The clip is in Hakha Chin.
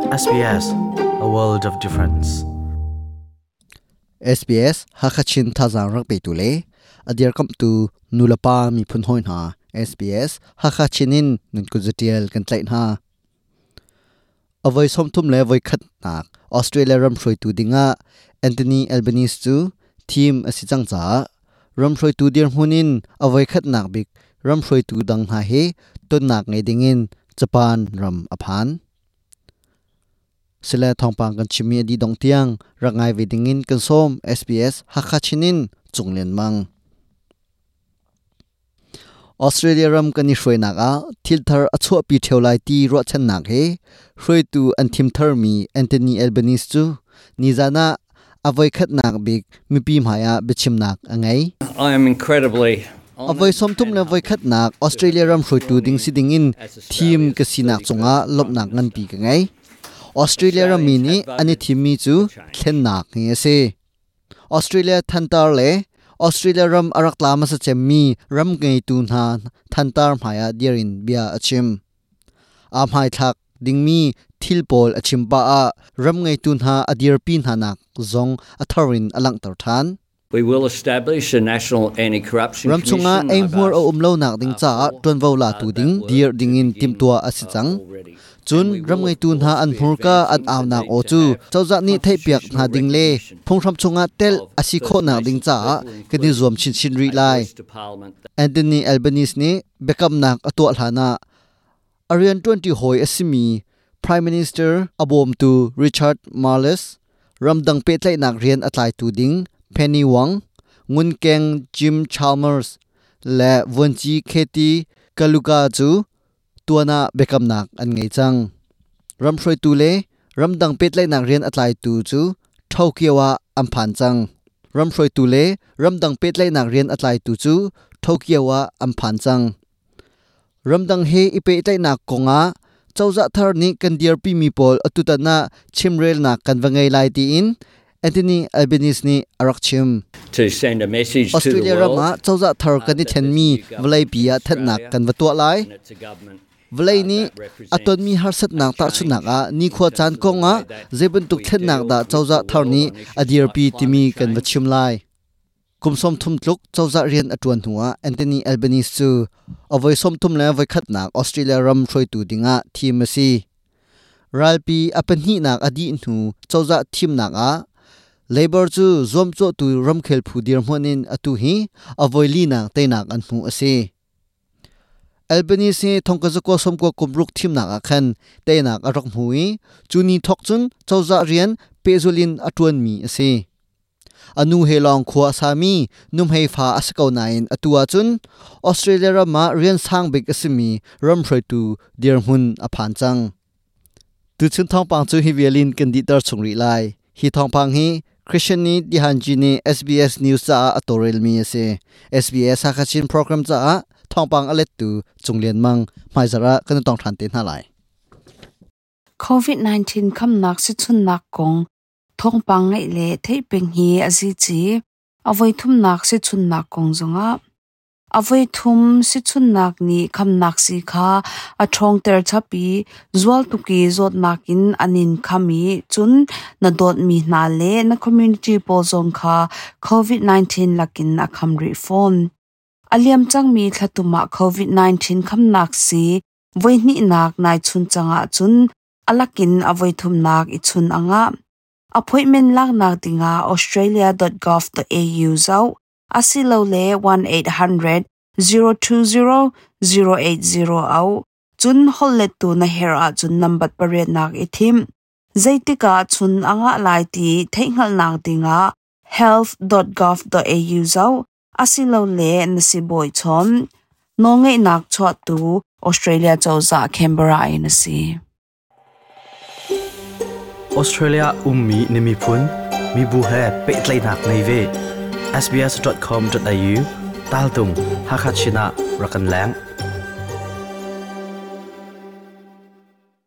SBS, a world of difference. SBS Hakachin thazaang rak petu le a dirkamhtu nulepa miphun hawi hna SBS Hakachin in nan kut zatial kan tlaih hna. Avoi 31 nak Australia ram hruaitu dingah Anthony Albanese cu thim a si cang caah ram hruaitu dirhmun in avoi khatnak bik ram hruaitu dang hna he tonnak ngei dingin Japan ram a phan. Sile thawngpang kan chimmi a dih dong tiang rak ngai ve dingin kan sawm. SBS Hakha Chinin Cunglian Mang. Australia ram kan i hruainak ah thil thar a chuahpi ṭheo lai ti ruahchannak he hruaitu an thim tharmi Anthony Albanese cu nizan ah a voikhatnak bik mipi hmai ah biachimnak a ngei. I am incredibly A voi 31nak Australia ram hruaitu ding si dingin thim ka sinak cungah lawmhnak nganpi ka ngei. Australia rammi nih an i thimmi cu thlennak hi a si. Australia thantar le Australia ram a rak tla hmasa cemmi ram ngeitu hna thantar hmaiah dir in bia a chim. Aa hmaithlak dingmi thil pawl a chim pah ah ram ngeitu hna a dirpi hna nak zong a thar in a langhter ṭhan. We will establish a national anti-corruption Ram chungah commission. I've eihmuar a asked um lonak ding caah for ṭuanvo latu that ding work dir to dingin begin timhtuah a si cang. already. Cun And we ram will, of ngeitu hna course, an be hmurka an advancing the aunak need aw to cu have cozah nih theihpiak hna constitutional ding le recognition phunghram chungah tel of a si First khawhnak ding Nations caah people, kan i zuam including chinchin rih a lai. voice to parliament. Anthony Albanese nih biakamnak a tuah hlanah a rianṭuanṭi hawi a simi Prime Minister a bawmtu Richard Marles, ramdang pehtlaihnak rian a tlaitu ding Penny Wong, ngunkeng Jim Chalmers le vuanci Katie Kaluka cu tuan ah biakamnak an ngei cang. Ram hruaitu le ramdang pehtlaihnak rian a tlaitu cu Tokyo ah an phan cang. Ram hruaitu le ramdang pehtlaihnak rian a tlaitu cu Tokyo ah an phan cang. Ramdang he i pehtlaihnak kongah cozah thar nih kan dirpimi pawl atutan ah chimrelnak kan va ngei lai tiin Anthony Albanese nih a rak chim. To send a message to the Australia ram world ah cozah thar kan i that this thlenmi new government vawleipi in ah thanhnak Australia kan va tuah lai. and it's a government Vawlei nih that a represents tonmi a harsatnak tahchunhnak change ah in nikhua terms caan of the kongah way that zei bantuk we thlennak deal dah with cozah the thar world nih on a issues like dirpi timi climate kan va change. chim lai. Kum 30 tluk cozah rian a ṭuan hnuah Anthony Albanese cu a voi 31nak Australia ram hruaitu dingah thim a si. Ralpi a pahnihnak a dih hnu cozah thimnak ah Labor cu zuamcawhtu ramkhel phu dirhmun in atu hi a voi linak teinak an hmuh a si. Albanese hi 1990 kum ruk thimnak ah khan teinak a rak hmu i cu ni thawk cun cozah rian pehzulh in a ṭuanmi a si. A nu he lawng khua a sami nuhmei fa a si ko nain atu ahcun Australia ram ah rian sang bik a simi ram hruaitu dirhmun a phan cang. Tuchun thawngpang cu hi vialin kan dihter chung rih lai. Hi thawngpang hi Christian nih Dihanji nih SBS News caah a tawlrelmi a si. SBS Hakachin program caah thawngpang a lettu Cunglian Mang hmaizarh ah kan i tong ṭhan te hna lai. COVID-19 khamnak sichunnak kong thawngpang ngaih le theih peng hi a zi ci. A voi thumnak sichunnak kong zongah a voi thum sichunnak nih khamnak si kha a ṭhawngter chap i zual tuk i zawtnak in an in kham i cun na dawtmi hna le na community pawl zong kha COVID-19 lakin a kham rih fawn. A liam cangmi thlatum ah COVID-19 khamnak si voi hnihnak nai chun cangah cun a lakin a voi thumnak i chun angah. Appointment laknak dingah australia.gov.au zoh asilole 1800 020 080 au cun hollettu na herh ahcun nambat pariatnak i thim. Zeitikah chun angah lai ti theihhngalhnak dingah health.gov.au zoh asilole na sibawi chawn. Nawlngeihnak chuahtu Australia cozah Canberra in a si. Australia ummi na miphun mibu he pehtlaihnak nei ve. sbs.com.au tal tung Hakha Chin ah rak kan leng.